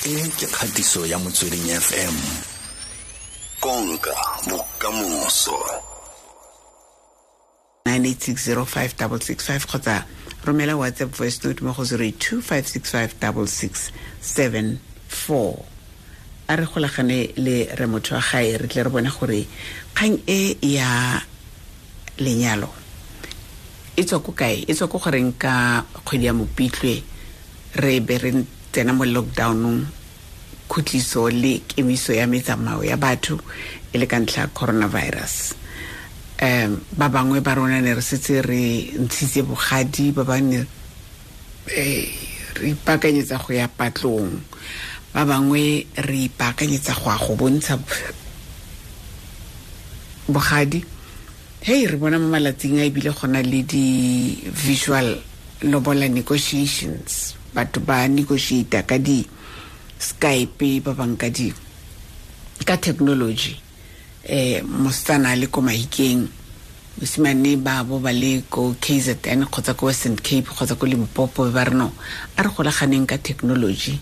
E ke kgatiso ya Motsweding FM. Konka bokamoso. 98605665 kgotsa romela WhatsApp voice note mo go 082 565 6674. A re golagane le re motho wa gae, re tle re bone gore kgang e ya lenyalo e tswa ko kae, e tswa ko goreng ka kgwedi ya Mopitlwe re be re tsena mo lockdownong, khutliso le kemiso ya metsamao ya batho e le ka ntlha ya coronavirus. Ba bangwe ba rona ne re setse re ntshitse bogadi, ba bangwe re ipaakanyetsa go ya patlong, ba bangwe re ipaakanyetsa go ya go bontsha bogadi. Hei, re bona mo malatsing a ebile gona le di-visual lobola negotiations, batho ba negotiata ka di-Skype, ba bang ka technology. Mosetsana a le ko Mahikeng, mosimane ba bo ba le ko KZN kgotsa ko Western Cape kgotsa ko Limpopo, ba re no, a re golaganeng ka technology.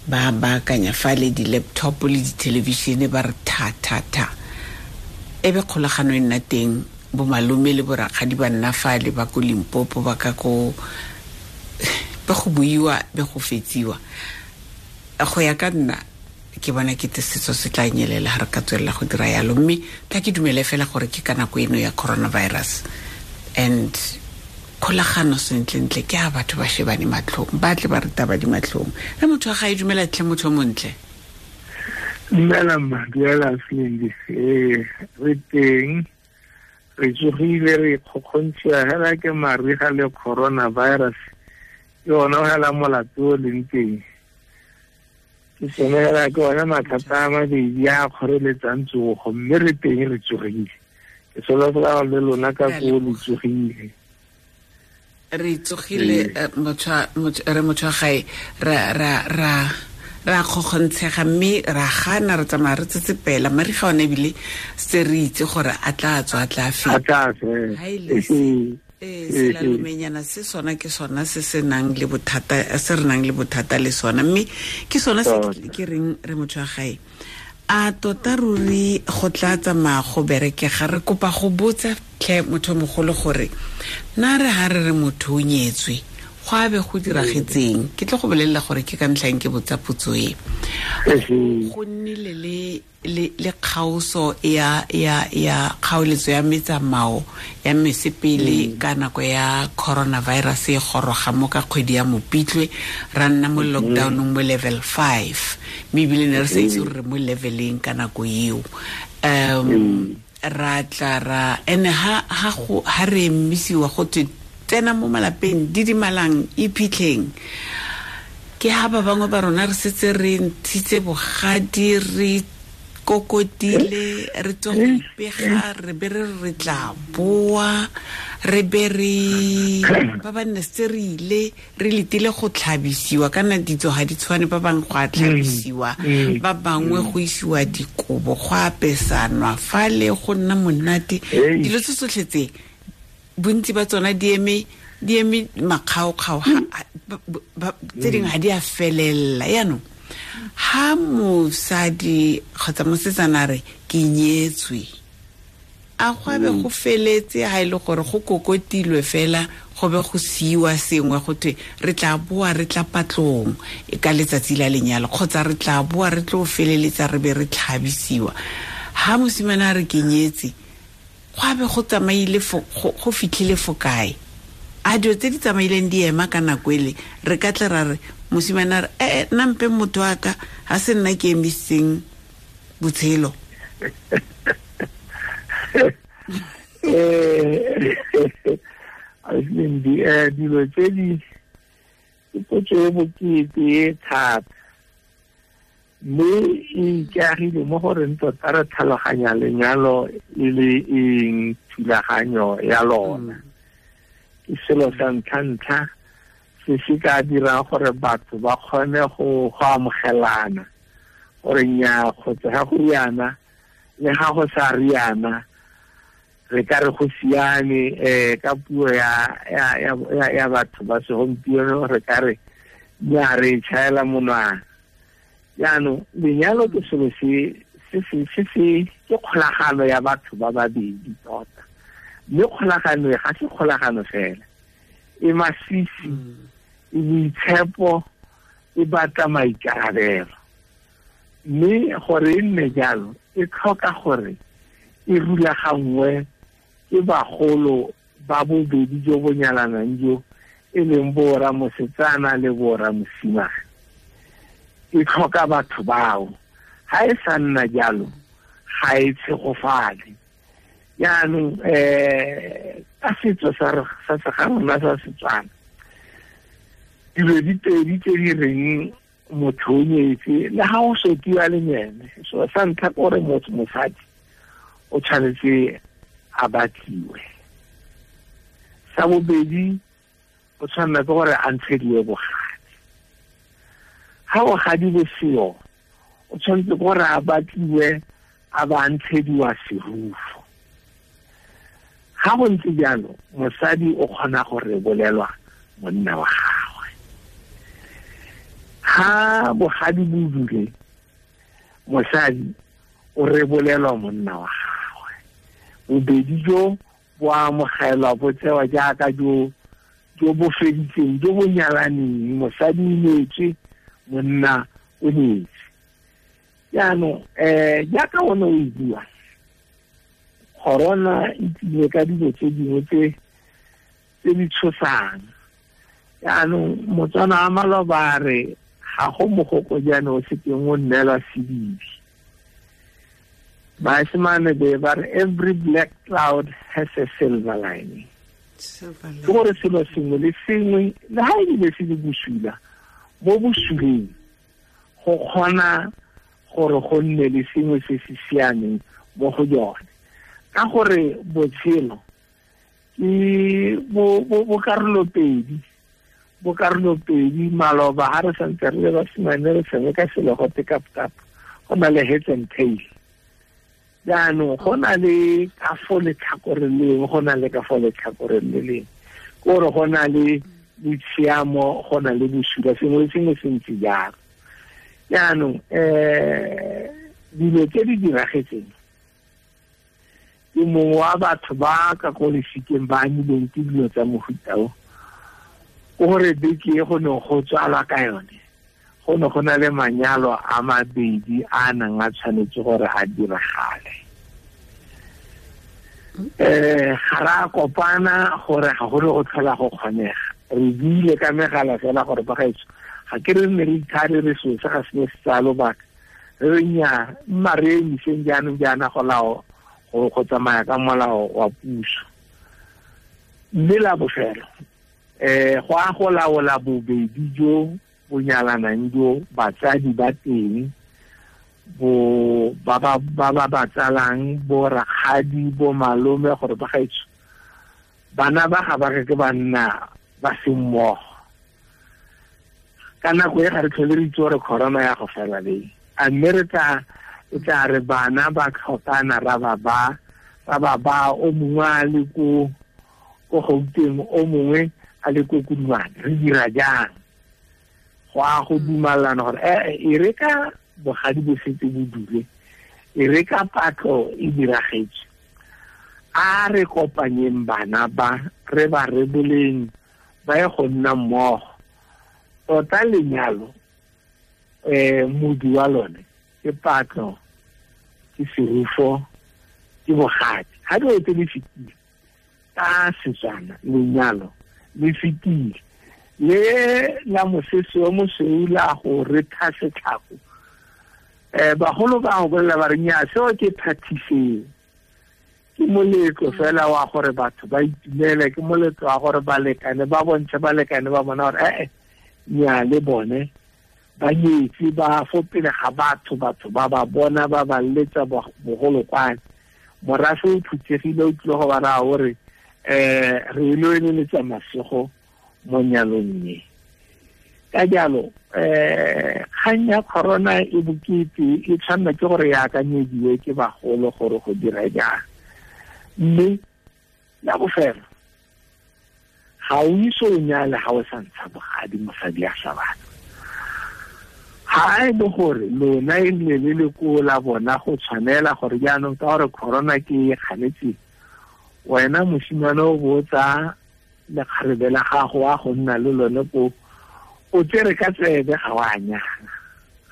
Ba baakanya fa le di-laptop le di-television, ba re tha tha tha, e be kgolagano e nna teng. Bomalome le borakgadi ba nna fale ba ko Limpopo, ba ka ko be go buiwa, be go fetsiwa. Go ya ka nna, ke bona ke te setso se tla nyelela ga re ka tswelela go dira yalo, mme tla ke dumele fela gore ke ka nako eno ya coronavirus and kgolagano sentlentle ke a batho ba shebane matlhong, ba tle ba re taba di matlhong. Re motho wa ga e dumela tlhe, motho o montle. Dumela mma, dumela Slindi. Ee, re teng, re tsogile, re kgokgontshiwa hela ke mariga le coronavirus. Ke ona hela molato o leng teng, ke sone hela, ke ona mathata a mabedi a kgoreletsang tsogo, mme re teng, re tsogile. Ke solofela le lona ka koo le tsogile. Re tsogile, re motho wa gae, ra kgokgontshega mme ra gana, re tsamaya re tsetsepela. Mariga one ebile se re itse gore a tla tswa, a tla feta. Ha e le selalomenyana se sona, ke sona se se nang le bothata, se re nang le bothata le sona, mme ke sona se ke reng re motho wa gae, a tota ruri go tla tsamaya go berekega. Re kopa go botsa tlhe motho mogolo gore na re ha re re motho o nyetswe, go a be go diragetseng? Ke tlo go bolelela gore ke ka ntlhang ke botsa potso e. Go nnile le kgaoso ya kgaoletso ya metsamao ya mesepele ka nako ya coronavirus e goroga mo ka kgwedi ya Mopitlwe, ra nna mo lockdownong mo level 5, mme ebile ne re sa itse gore re mo leveleng ka nako eo. Ra tla ra ene ha re emisiwa go twe tsena mo malapeng, didimalang, iphitlheng, ke ha ba bangwe ba rona re setse re ntshitse bogadi, re kokotile, re tswa go ipega, re be re re tla boa, re be re ba ba nne setse re ile, re letile go tlhabisiwa. Kana ditso ga di tshwane, ba bangwe go a tlhabisiwa, ba bangwe go isiwa dikobo, go apesanwa fale, go nna monate. Dilo tse tsotlhe tse, bontsi ba tsona di eme makgaokgao, tse dingwe ga di a felela. Yaanong ha mosadi kgotsa mosetsana re ke nyetswe, a go abe go feletse? Ha e le gore go kokotilwe fela, go be go siiwa sengwe, go thwe re tla boa, re tla patlong ka letsatsi la lenyalo, kgotsa re tla boa re tlo feleletsa, re be re tlhabisiwa. Ha mosimane a re ke nyetse, go abe go tsamaile, go fitlhile fo kae? A dilo tse di tsamaileng di ema ka nako ele, re ka tle ra re mosimane a re ee, nna mpe motho wa ka, ga se nna ke emisitseng botshelo? Aslindi, dilo tse di ke potso e bokete e thata, mme e ikaegile mo goreng tota re tlhaloganya lenyalo e le eng, thulaganyo ya lona. Ke selo sa ntlha-ntlha se se ka dirang gore batho ba kgone go amogelana gore nnyaa, kgotsa ga go riana le ga go sa riana, re ka re go siame. Ka puo ya batho ba segompieno, re ka re nnyaa, re tšhaela monwana. Jaanong lenyalo ke selo se se ke kgolagano ya batho ba babedi tota, mme kgolagano e ga se kgolagano fela, e masisi, e boitshepo, e batla maikarabelo. Mme gore e nne jalo e tlhoka gore e rulaganngwe ke bagolo ba bobedi jo bo nyalanang jo e leng borra mosetsana le borra mosimane. E tlhoka batho bao. Ha e sa nna jalo ga e tshegofale. Jaanong ka setso sa ga rona sa Setswana, dilo di pedi tse di reng motho o nyetse le ga o sotiwa le ene, so sa ntlha ke gore motho mosadi o tshwanetse a batliwe, sa bobedi o tshwanela ke gore a ntshediwe bogadi. Ha bogadi bo seo, o tshwanetse ke gore a batliwe a ba ntshediwa serufo. Ha go ntse jalo, mosadi o kgona go rebolelwa monna wa gagwe. Ha bogadi bo dule, mosadi o rebolelwa monna wa gagwe. Bobedi jo bo amogelwa, bo tsewa jaaka jo bo feditseng, jo bo nyalaneng. Mosadi o nyetswe, monna o nyetse. Jaanong jaaka o ne o e bua, corona e tlile ka dilo tse dingwe tse di tshosang. Jaanong Motswana wa maloba a re ga go mogokojane o sekeng o nnelwa sedibi. Baesemane be ba re every black cloud has a silver lining. Ke gore selo sengwe le sengwe le ha ebile se le bosula, mo bosuleng go kgona gore go nne le sengwe se se siameng mo go jone. Ka gore botshelo ke bo karolo pedi, bo karolo pedi. Maloba ha re santse re le basimane re tshameka selo go te kap-kap, go na le heads and tail. Jaanong go na le ka fo letlhakoreng le lengwe, go na le ka fo letlhakoreng le lengwe, ke gore go na le botshiamo, go na le bosula, sengwe le sengwe se ntse jalo. Jaanong dilo tse di diragetseng, ke mongwe wa batho ba ka ko lefikeng ba amilweng ke dilo tsa mofuta o, ke gore beke e go neng go tswalwa ka yone, go ne go na le manyalo a mabedi a nang a tshwanetse gore a diragale. Ga re a kopana gore ga go ne go tlhola go kgonega. Re buile ka megala fela gore bagaetsho ga ke re nne re ithare re seo se ga se ne se tsaya lobaka, re re nnyaa, mma re emiseng jaanong jaana go lao go tsamaya ka molao wa puso. Mme la bofelo go a go laola bobedi jo bo nyalanang jo, batsadi ba teng, bo ba ba ba tsalang, bo rakgadi, bo malome, gore bagaetsho bana ba ga ba ke ba nna ba se mmogo. Ka nako e ga re tlhole re itse gore corona ya go fela leng, a mme re tla re bana ba tlhokana ra ba o mongwe a le ko Gauteng, o mongwe a le ko Kudumane, re dira jang? Go a go dumalana gore e re ka bogadi bo setse bo dule, e re ka patlo e diragetse, a re kopanyeng bana ba, re ba reboleng ba ye go nna mmogo. Tota lenyalo modi wa lone ke patlo, ke serufo, ke bogadi. Ha dilo tse di fetile ka Setswana, lenyalo le fetile. Le la mosese o mosweu la go retha setlhako, bagolo ba go bolela ba re nnyaa, seo ke phathiseng, ke moletlo fela wa gore batho ba itumele, ke moletlo wa gore balekane ba bontshe balekane ba bona gore nnyaa le bone ba nyetse, ba fo pele ga batho, batho ba ba bona, ba ba letsa bogolokwane. Morafe o phuthegile, o tlile go ba raya gore re ile eleletsa masego mo nyalong e. Ka jalo kgang ya corona e bokete, e tshwanela ke gore e akanyediwe ke bagolo gore go dira jang. Mme la bofelo, ga o ise o nyale ga o sa ntsha bogadi, mosadi a sa batla. Ha e le gore lona e nne le le ko la bona go tshwanela gore jaanong ka gore corona ke e kganetse, wena mosimane o botsa lekgarebe la gago wa go nna le lone ko o tsere ka tsebe, ga wa nyala,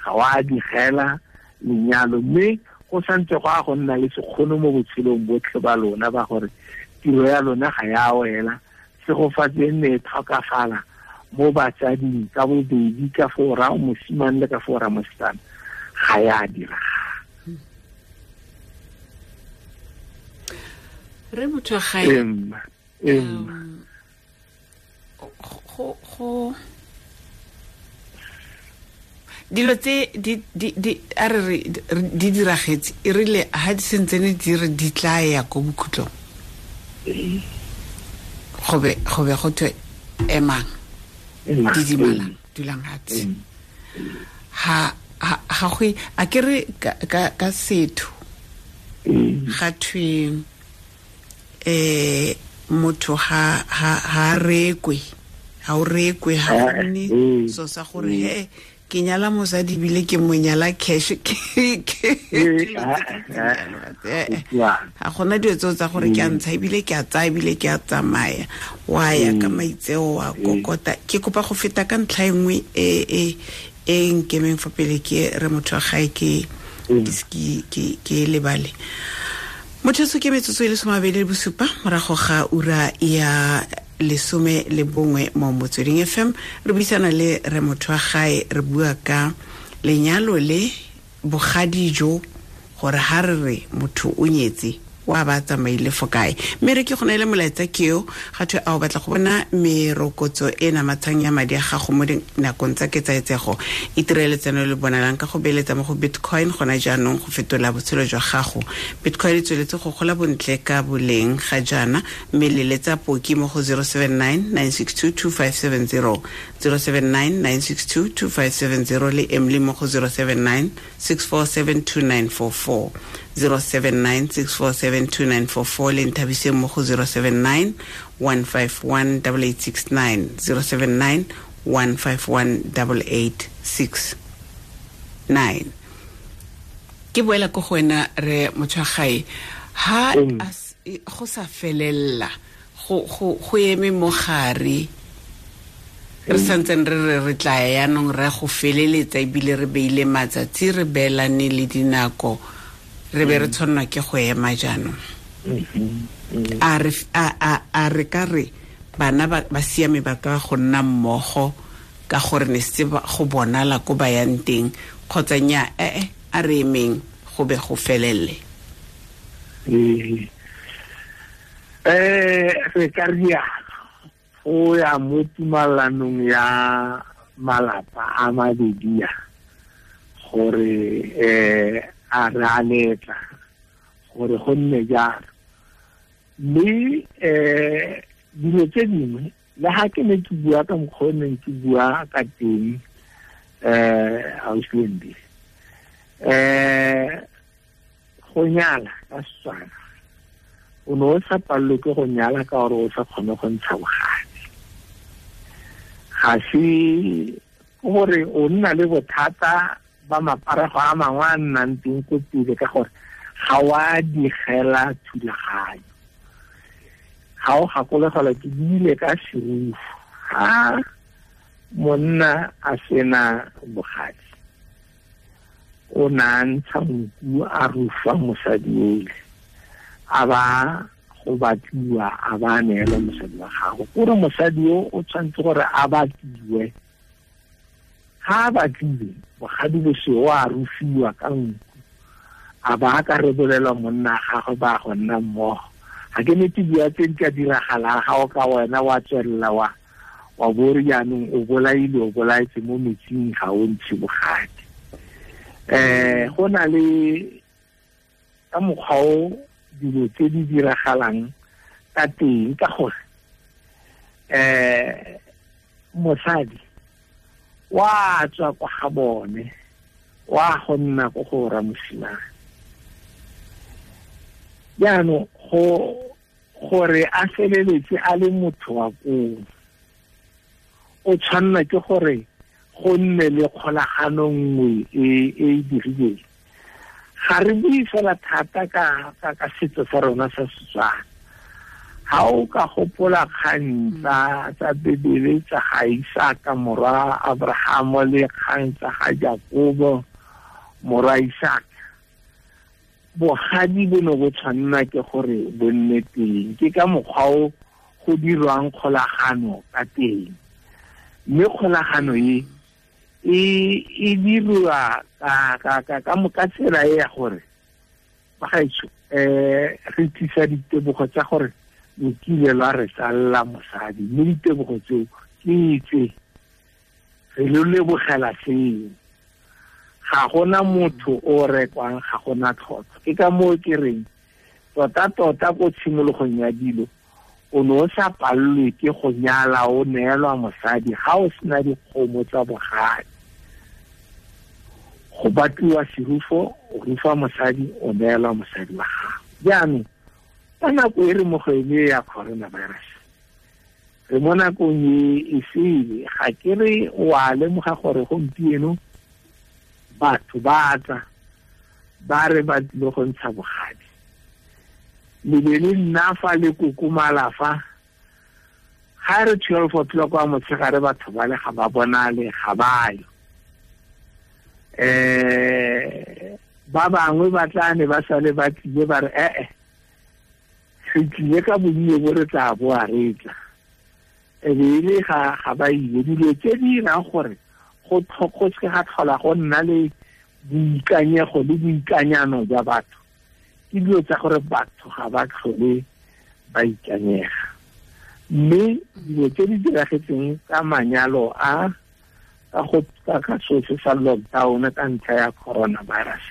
ga wa digela lenyalo, mme go santse go a go nna le sekgono mo botshelong botlhe ba lona ba gore tiro ya lona ga ya wela, segofatse e nne e tlhokafala mo batsading ka bobedi, ka fo ra mosimane le ka fo ra mosetsana, ga ya diragala. Re motho wa gae go dilo tse di a re di diragetse e rile ha di sentsene di re di tla ya ko bokhutlong, go be go thwe emang, didimalang, dulang hatshe. Ha go a ke re ka setho ga thwe motho ha rekwe, ha o rekwe, ha gone so sa gore he ke nyala mosadi bile ke mo nyala cash, ke ga gona dilo tseo tsa gore ke a ntsha ebile ke a tsaya ebile ke a tsamaya, wa ya ka maitseo wa kokota. Ke kopa go feta ka ntlha e nngwe e e nkemeng fa pele ke re motho wa gae ke lebale. Motho so ke metsotso e le 27 morago ga ura ya 11 mo Motsweding FM. Re buisana le re motho wa gae, re bua ka lenyalo le bogadi jo, gore ha re re motho o nyetse wa ba tsamaile fo kae. Mme re ke go neele molaetsa keo ga thwe a o batla go bona merokotso e namatshang ya madi a gago mo dinakong tsa ketsaetsego, itirele tseno le bonalang ka go beeletsa mo go Bitcoin gona jaanong go fetola botshelo jwa gago. Bitcoin e tsweletse go gola bontle ka boleng ga jaana, mme leletsa poki mo go 079 962 2570, 079 962 2570 le Emily mo go 079 647 2944, 079 647 2944 le Nthabiseng mo go 079 151 8869, 079 151 8869. Ke boela ko go wena re motho wa gae, ha go sa felella go eme mo gare, re santseng re re tla yaanong re go feleletsa ebile re beile matsatsi, re beelane le dinako, re be re tshwanelwa ke go ema jaanong. A re ka re bana ba siame ba ka go nna mmogo ka gore ne se go bonala ko ba yang teng, kgotsa nya a re emeng go be go felele? Re ka rialo go ya mo tumalanong ya malapa a mabedi a gore a re a letla gore go nne jalo. Mme dilo tse dingwe le ha ke ne ke bua ka mokgwa o neng ke bua ka teng ausi, go nyala ka Setswana o ne o sa palelwe ke go nyala ka gore o sa kgone go ntsha bogadi, ga se gore o nna le bothata ba maparego a mangwe a nnang teng ko pele ka gore ga wa digela thulaganyo. Ga o gakologelwa ke buile ka serufu, ha monna a sena bogadi o na ntsha nku a rufa mosadi ole, a ba go batliwa a ba neela mosadi wa gago, kore mosadi o o tshwanetse gore a batliwe. Ha a batlile bogadi boseo a rufiwa ka nku, a ba ka rebolelwa monna gagwe ba go nna mmogo. Ga ke nete bua tse di ka diragalang ga o ka wena wa tswelela wa bore jaanong o bolaile, o bolaetse mo metsing, ga o ntshe bogadi. Go na le ka mokgwa o dilo tse di diragalang ka teng, ka gore mosadi wa tswa kwa ga bone wa go nna ko go ra mosimane. Jaanong gore a feleletse a le motho wa koo, o tshwanela ke gore Go nne le kgolagano nngwe e e dirileng. Ga re bue fela thata ka setso sa rona sa Setswana. Ha o ka gopola kgang tsa Bibele tsa ga Isaka morwa Abraham le kgang tsa ga Jakobo morwa Isaka, bogadi bo ne bo tshwanna ke gore bo nne teng. Ke ka mokgwa o go dirwang kgolagano ka teng, mme kgolagano e e dirwa ka tsela e ya gore bagaetsho re tlisa ditebogo tsa gore lo kile lwa re tsalla mosadi, mme ditebogo tseo ke tse re lo lebogela seo. Ga gona motho o rekwang, ga gona tlhotlhwa. Ke ka moo ke reng tota-tota ko tshimologong ya dilo o ne o sa palelwe ke go nyala o neelwa mosadi ga o sena dikgomo tsa bogadi. Go batliwa serufo, o rufa mosadi, o neelwa mosadi wa gago. Jaanong ka nako e re mo go ene ya coronavirus, re mo nakong e e sele, ga ke re o a lemoga gore gompieno batho ba tla ba re ba tlile go ntsha bogadi. Le be le nna fa le kokomala fa, ga re 12 o'clock wa motshegare batho ba le ga ba bonale, ga ba yo. Ba bangwe ba tla ne ba sale ba tlile ba re re tlile ka bonnye bo re tla boa re tla. E be e le ga ba ile. Dilo tse di dirang gore go seke ga tlhola go nna le boikanyego le boikanyano jwa batho ke dilo tsa gore batho ga ba tlhole ba ikanyega. Mme dilo tse di diragetseng ka manyalo a ka go ka so se sa lockdown ka ntlha ya coronavirus,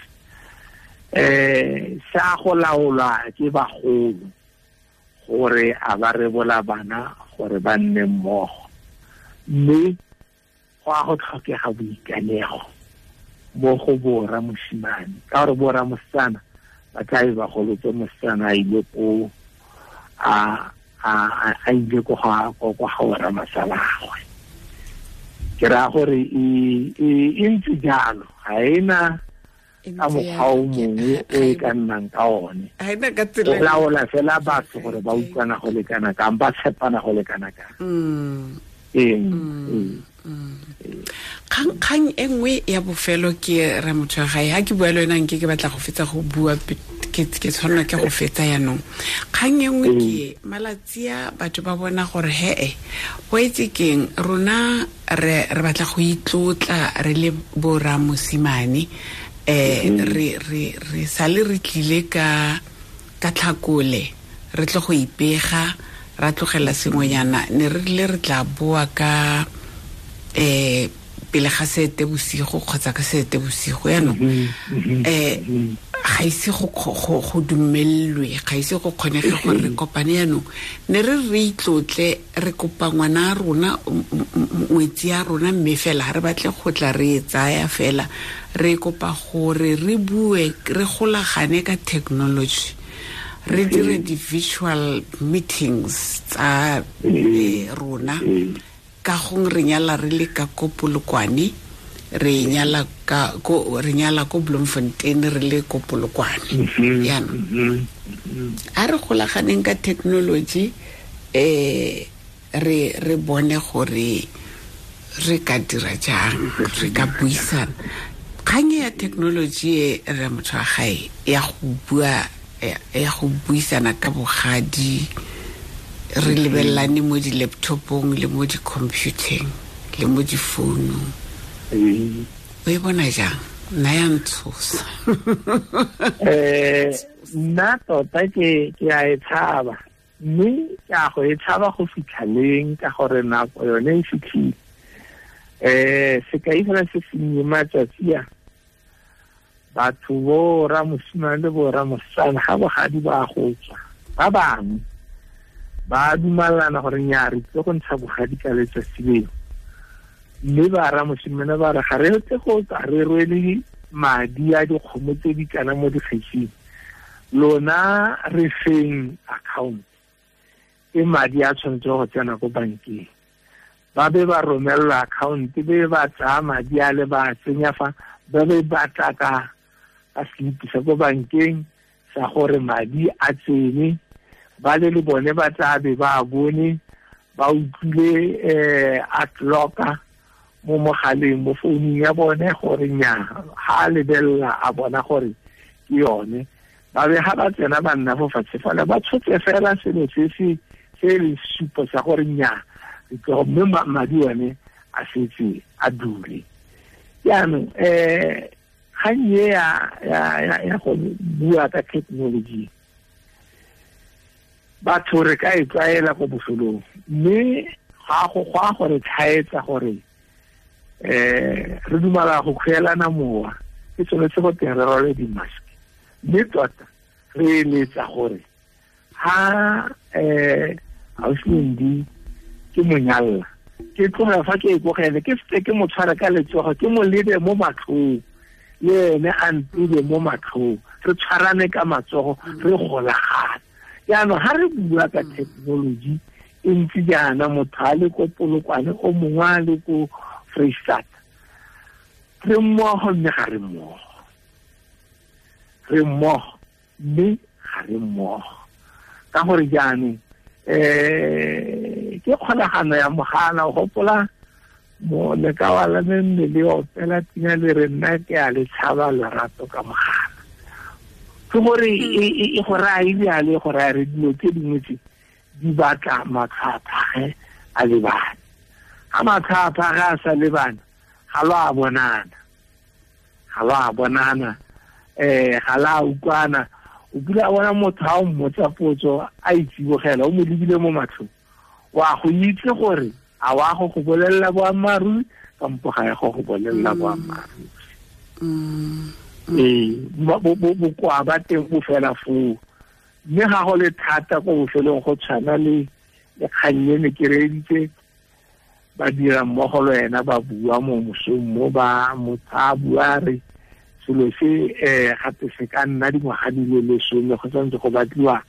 sa go laolwa ke bagolo gore a ba rebola bana gore ba nne mmogo, mme go a go tlhokega boikanego mo go borra mosimane, ka gore borra mosetsana ba tla be ba golotse mosetsana a ile ko a ile ko ga borra masalagwe. Ke raya gore e ntse jalo, ga ena ka mokgwa o mongwe o e ka nnang ka one. O laola fela batho gore ba utlwana go lekana kang, ba tshepana go lekana kang. Kgang e nngwe ya bofelo ke re motho wa gae, ha ke bua le wena nke ke batla go fetsa go bua, ke tshwanela ke go fetsa yanong. Kgang e nngwe ke malatsi a batho ba bona gore he go itse keng, rona re batla go itlotla re le borra mosimane, re sale re tlile ka tlhakole, re tle go ipega, ra tlogela sengwenyana, ne re rile re tla boa ka pele ga sete bosigo kgotsa ka sete bosigo. Yaanong ga ise go dumelelwe, ga ise go kgonege gore re kopane. Yaanong ne re re itlotle, re kopa ngwana a rona, ngwetsi ya rona, mme fela re batle go tla re e tsaya fela, re kopa gore re bue, re golagane ka technology, re dire di-virtual meetings tsa rona. Ka gong re nyala re le ka ko Polokwane, re nyala ko Bloemfontein, re le ko Polokwane. Yaanong a re golaganeng ka technology, re bone gore re ka dira jang, re ka buisana. Kgang ya technology e re motho wa gae ya go bua, ya go buisana ka bogadi, re lebelelane mo di-laptopong le mo di-computeng le mo difounung, o e bona jang? Nna ya ntshosa. Nna tota ke a e tshaba, mme ke a go e tshaba go fitlhaleng ka gore nako yone e fitlhile. Sekai fela se sennye, matsatsi a batho bo rra mosimane le bo rra mosetsana ga bogadi ba go tswa, ba bangwe ba dumalana gore nnyaa re tlile go ntsha bogadi ka letsatsi leo, mme ba rra mosimane ba re ga re tle go tla re rwele madi a dikgomo tse di kana mo dikgetsing, lona re feng account e madi a tshwanetse go tsena ko bankeng. Ba be ba romela account be ba tsaya madi a le ba tsenya fa ba be ba tla ka slip sa ko bankeng sa gore madi a tsene ba le le bone ba tla be ba bone ba utlwile a clocka mo mogaleng mo founung ya bone gore nya ha lebella a bona gore ke yone ba be ha ba tsena ba nna fo fatshe fela ba tshotse fela selo se se se le supo sa gore nya mme madi one a setse a dule. Jaanong kgang e ya go bua ka technology batho re ka e tlwaela ko bofelong mme ga go gwa gore tlhaetsa gore re dumela go kgwelana mowa ke tshwanetse go teng re rwale di-mask mme tota re eletsa gore ha ausi ke monyalla ke tloga fa ke ikogele ke setse ke mo tshware ka letsogo ke mo lebe mo matlhong le ene a ntebe mo matlhong re tshwarane ka matsogo re golagane. Jaanong ha re bua ka technology e ntse jaana motho a le ko Polokwane o mongwe a le ko Freistata re mmogo mme ga re mmogo re mmogo mme ga re mmogo ka gore jaanong ke kgolagano ya mogala o gopola mo lekawa la me mme le opela pina le re nna ke a le tshaba lerato ka mogala ke gore e go raya ebjale go raya re dilo tse dingwe tse di batla matlho a phage a lebane ga matlho a phage a sa lebana ga lo a bonana ga lo a bonana ga la utlwana o kile a bona motho ha o mmotsa potso a itsibogela o mo lebile mo matlhong wa go itse gore a wa go go bolelela boammaaruri kampo ga ya go go bolelela boammaaruri. Bokoa ba teng bo fela foo mme ga go le thata ko bofelong go tshwana le kgang e ne ke reeditse ba dira mmogo le wena ba bua mo mosong mo ba motho a bua re selo se gape se ka nna dingwaga di le lesome go santse go batliwa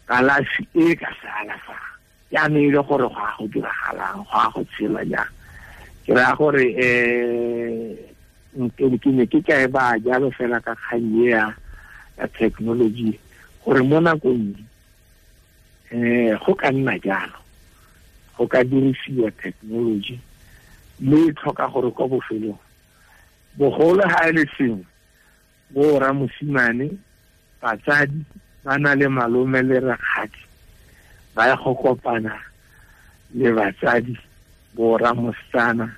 kalafi e ka se alafang jaanong e le gore go a go diragalang go a go tshela jang ke raya gore ke ne ke ka e baya jalo fela ka kgang e ya technology gore mo nakong go ka nna jalo go ka dirisiwa technology mme e tlhoka gore kwa bofelong bogolo ha e le sengwe bo rra mosimane batsadi ba na le malome le rakgadi ba ya go kopana le batsadi bo rra mosetsana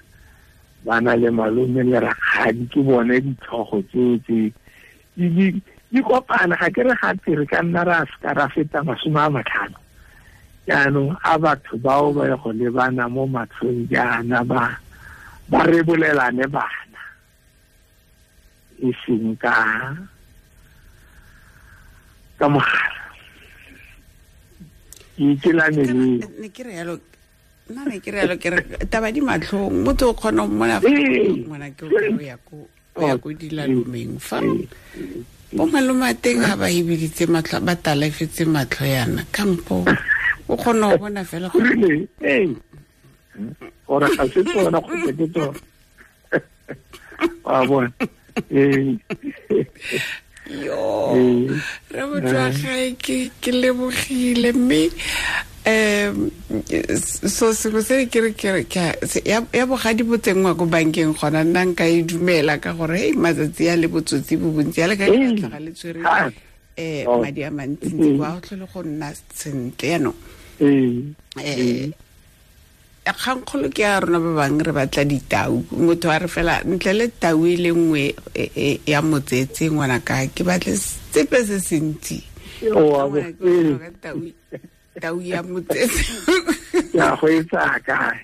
ba na le malome le rakgadi ke bone ditlhogo tseo tse di kopana ga ke re gape re ka nna ra seka ra feta 50 jaanong a batho bao ba ya go lebana mo matlhong jaana ba rebolelane bana e seng ka mogala ke ikelane le ne ke re yalo nna ne ke re yalo ke re taba di matlhong motho o kgona go mmona ngwana ke o ya ko dilalomeng fa bo malome a teng ga ba ebiditse matlho ba talefetse matlho yana kampo o kgona go bona fela gore gore ga se tsona kgotsa ke tsona wa bona. Yo re motho ke lebogile mme so sengwe se ke re ya bogadi bo tsenngwa ko bankeng gona nna nka e dumela ka gore hei matsatsi a le botsotsi bo bontsi a le ka tlhaga le tshwere madi a mantsintsi kwa go tlhole go nna sentle yaanong kgangkgolo ke ya rona ba bangwe re batla ditau motho a re fela ntle le tau e le nngwe ya motsetse ngwanaka ke batle sepe se sentsi tau ya motsetse ya go e tsaya kae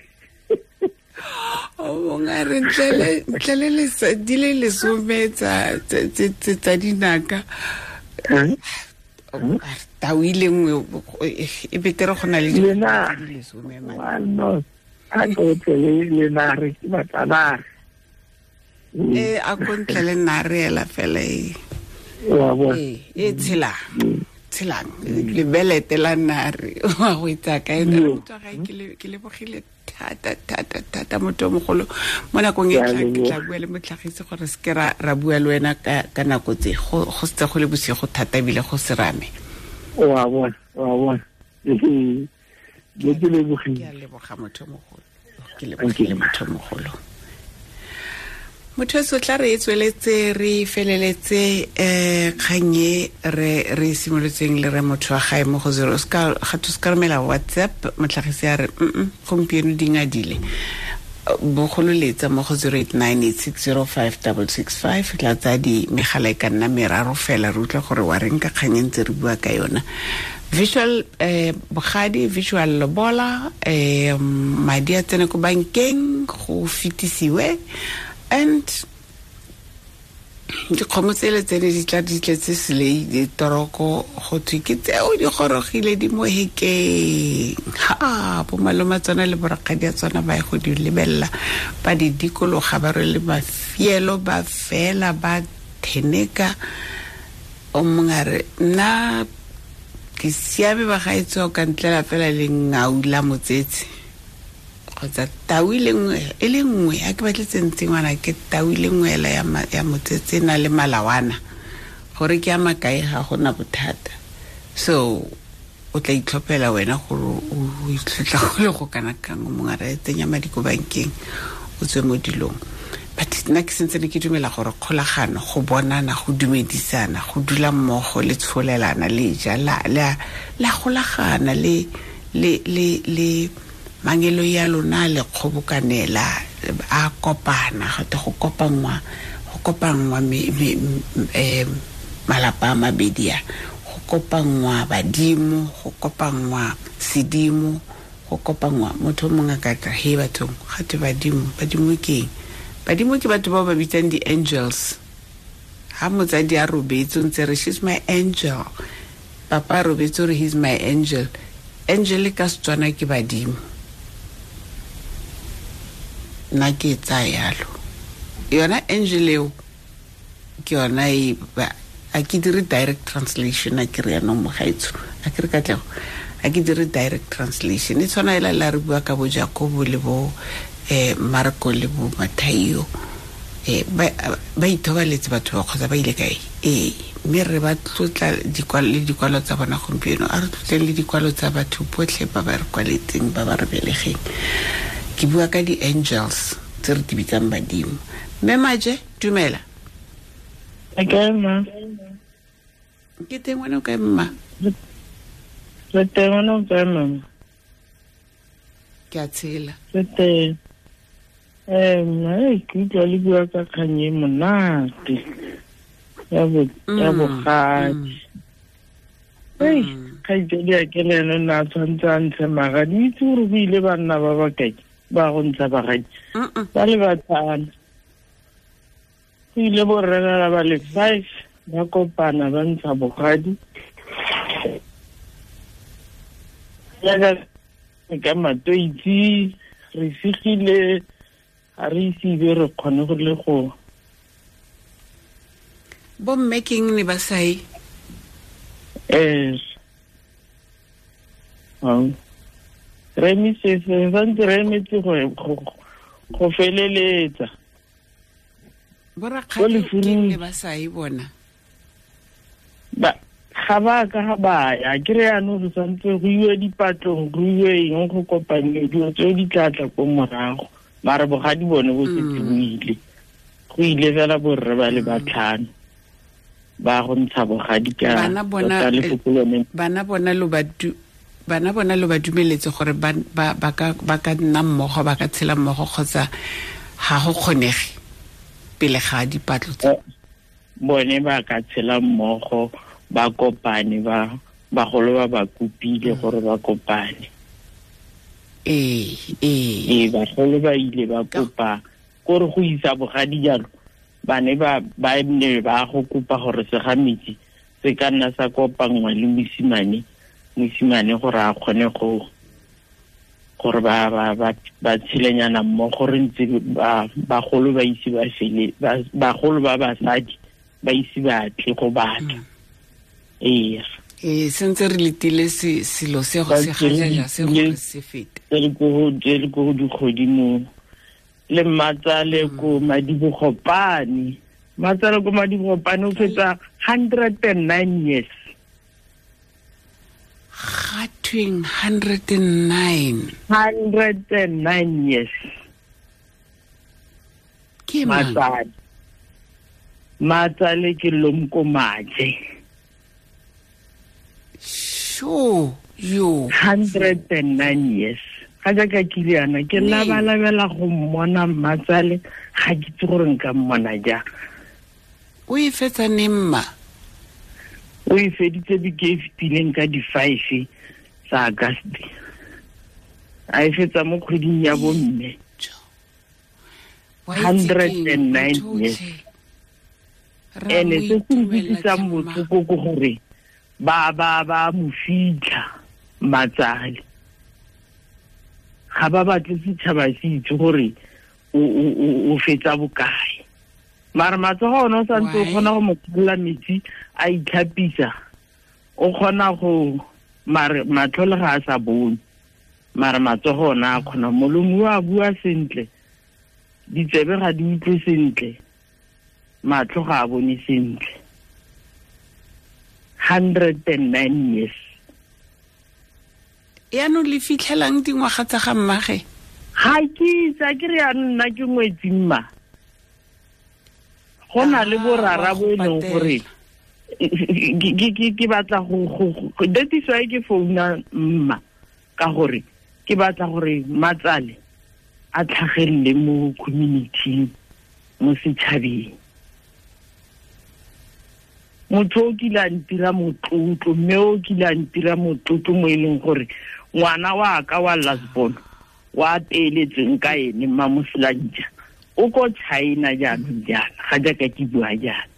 o mongwe a re ntle le di le lesome tsa dinaka tau e le nngwe e betere go na le lesome a ko tle le nare ke batla nare a ko ntle le nare ela fela e e tshela Tshelang lebelete la nare wa go itsa kae motho ga ke lebogile thata thata thata motho mogolo mo nakong e tla ke tla bua le motlhagisi gore se ke ra bua le wena ka nako tse go setse go le bosigo thata ebile go serame. Wa bona ke lebogile. Ke a leboga motho mogolo, ke lebogile motho mogolo. Motho so tla re e tsweletse re feleletse kganye re simolotseng le re motho wa gae mo go 0 ska ga to ska romela WhatsApp motlhagisi a re gompieno di ngadile bogololetsa mo go 0898605665 tla tsa di megala e ka nna meraro fela re utlwa gore wa reng ka kganye ntse re bua ka yona. Visual bogadi visual lobola madi a tsene ko bankeng go fetisiwe and dikgomo tsele tsene di tla di tletse selei ditoroko go thwe ke tseo di gorogile di mo hekeng. Ha bo maloma tsona le borakgadi a tsona ba ye go di lebelela ba di dikologa ba rwele mafielo ba fela ba theneka. O mongwe a re nna ke siame ba gaetsho ka ntlela fela le ngau la motsetse kgotsa tau e le nngwe a ke batle tsentse ngwana ke tau e le nngwe ela ya motsetse na le malawana gore ke a makae ga gona bothata. So o tla itlhophela wena gore o itlhotla go le go kana kang o mongwe a re tsenya madi ko bankeng o tswe mo dilong. But nna ke sentse ne ke dumela gore kgolagano go bonana go dumedisana go dula mmogo le tsholelana le ja la golagana le le le le mangelo ya lona le kgobokanela a kopana gate go kopanngwa malapa a mabedi a go kopanngwa badimo go kopanngwa sedimo go kopanngwa motho mongwe a ka tla he bathong gate badimo ke eng? Badimo ke batho bao ba bitsang di-angels. Ha motsadi a robetse o ntse re she's my angel, papa a robetse o re he's my angel. Angel ka Setswana ke badimo. Nna ke e tsaya yalo yona angel eo ke yona e a ke dire direct translation a ke re yanong mogaetsho a ke re katlego a ke dire direct translation e tshwana ela la re bua ka bo Jakobo le bo Marko le bo Mathaio ba ithobaletse batho ba kgotsa ba ile kae mme re ba tlotla le dikwalo tsa bona gompieno a re tlotleng le dikwalo tsa batho botlhe ba ba re kwaletseng ba ba re belegeng. Ke bua ka di-angels tse re di bitsang badimo. Mme Maje dumela. Ke mma. Ke teng wena o kae mma? Re teng wena o kae mama? Ke a tshela. Re teng. Ke utlwa le bua ka kgang e monate ya bogadi. Kgaitsedi a ke le ene o ne a tshwanetse a ntshe magadi. Itse gore go ile banna ba ba kae ba go ntsha bagadi ba le batlhano. Go ile borrelana ba le 5 ba kopana ba ntsha bogadi. Jaaka ka matoitsi re sigile ga re ise be re kgone go le go bomme keng ne ba sae. Re emise santse re emetse go feleletsa. Borakgadi keng ne ba sae bona? Ga ba ka ga ba ya ke re yanong re santse go iwe dipatlong go iwe eng go kopane dilo tseo di tla tla ko morago mare bogadi bone bo setse bo ile. Go ile fela borre ba le batlhano ba go ntsha bogadi ka bana bona lo ba dumeletse gore ba ka nna mmogo ba ka tshela mmogo kgotsa ga go kgonege pele ga dipatlo tse. Bone ba ka tshela mmogo ba kopane ba bagolo ba ba kopile gore ba kopane. Ee bagolo ba ile ba kopa gore go isa bogadi jalo ba ne ba ne ba go kopa gore segametsi se ka nna sa kopanngwa le mosimane gore a kgone go gore ba tshilenyana mmogo re ntse bagolo ba ise ba fele bagolo ba basadi ba ise ba tle go batla. Ee Sentse re letile selo se go se gajaja se gore se fete. Re ko go dikgodimo le mmatsale ko Madibogopane. Mmatsale ko Madibogopane o fetsa 109 years. Ga tweng 109. 109 years. Ke mang? Matsale ke Lomko Maje. Sure, yo. 109 years. Ga jaaka ke ile yana ke labalabela go mmona mmatsale, ga ke itse gore nka mmona jang. O e fetsa neng mma? O e feditse beke e fetileng ka di-5 tsa August. A e fetsa mo kgweding ya bomme. 109 years. Ene se se nkutlwisang botlhoko ke gore ba mo fitlha matsale. Ga ba batle setšhaba se itse gore o fetsa bokae. Mara matsogo one o santse o kgona go mo kgolola metsi a itlhapisa, o kgona go mare matlho le ga a sa bone, mare matsogo one a kgona. Molomo o a bua sentle, ditsebe ga di utlwe sentle, matlho ga a bone sentle. 109 years. Yaanong le fitlhelang dingwaga tsa ga mmage? Ga ke itse, a ke re yaanong nna ke ngwetsi mma. Go na le borara bo e leng gore ke batla go that is why ke founa mma, ka gore ke batla gore matsale a tlhagelele mo community, mo setšhabeng. Motho o kile a ntira motlotlo, mme o kile a ntira motlotlo mo e leng gore ngwana wa ka wa last born wa peeletseng ka ene mma Moselantja o ko China jaanong jaana, ga jaaka ke bua jaana.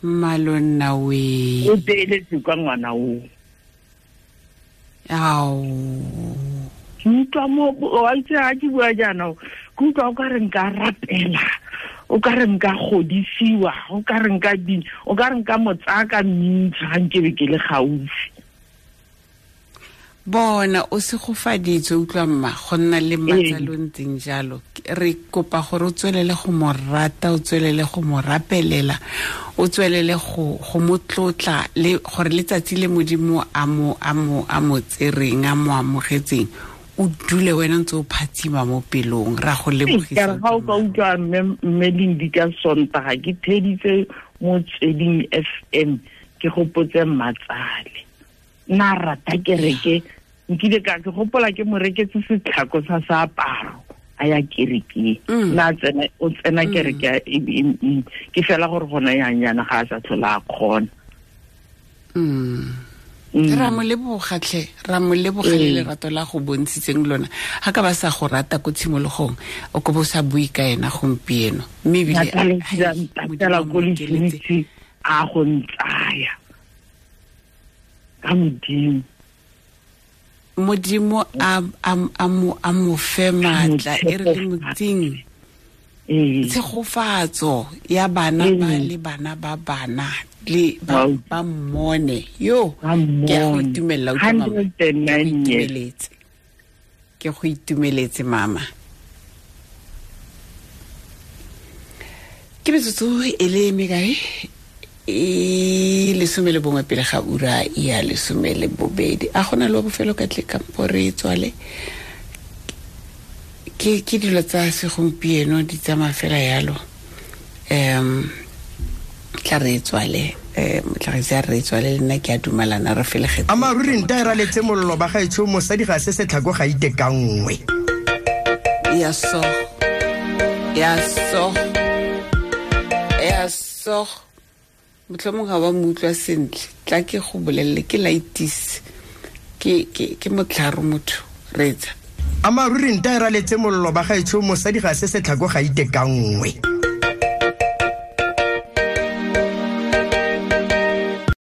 Mmalonna we. O peeletse kwa ngwana o. Ao. Ke utlwa mo, wa itse ga ke bua jaana, ke utlwa o ka re nka rapela, o ka re nka godisiwa, o ka re nka ding, o ka re nka mo tsaya ka mmintsha ga nkebe ke le gaufi. Bona o segofaditswe, utlwa mma, go nna le matsalo ntseng jalo. Re kopa gore o tswelele go mo rata, o tswelele go mo rapelela, o tswelele go mo tlotla, le gore letsatsi le Modimo a mo tsereng, a mo amogetseng, o dule wena ntse o phatsima mo pelong. Ra go lebogisa. Ga o ka utlwa mme Lindi ka Sontaga ke theditse Motsweding FM, ke gopotse matsale. Nna rata kereke, nkile ka ke gopola ke mo reketse setlhako sa seaparo a ya kerekeng. Nna tsena o tsena kereke ke fela gore gona yang yana ga a sa tlhola a kgona. Ra mo leboga tlhe, ra mo leboga le lerato la go bontshitseng lona. Ga ka ba sa go rata ko tshimologong, o ko bo sa bue ka ena gompieno. Mme ebile a ko letlitse a go ntsaya. Ka Modimo. Modimo a mo fe maatla, e re le motseng. Tshegofatso ya bana ba le bana ba bana le ba mmone. Yo, ke a go itumelela, utlwa mama. Ke go itumeletse mama. Ke metsotso e le mekae? E 11 pele ga ura ya 12. A gona le bofelo ka tle kampo re tswale. Ke dilo tsa segompieno di tsamaya fela yalo. Tla re tswale, motlhagisi a re tswale, le nna ke a dumalana re felegetse. Amaruri nta e raletse mollo ba gaetsho, mosadi ga se setlhako ga ite ka nngwe. Ya so. Ya so. Ya so. Motlhomong ga wa mo utlwa sentle, tla ke go bolelele ke laitis. Ke motlharo motho, reetsa. Amaruri nta e raletse mollo ba gaetsho, mosadi ga se setlhako ga ite ka nngwe.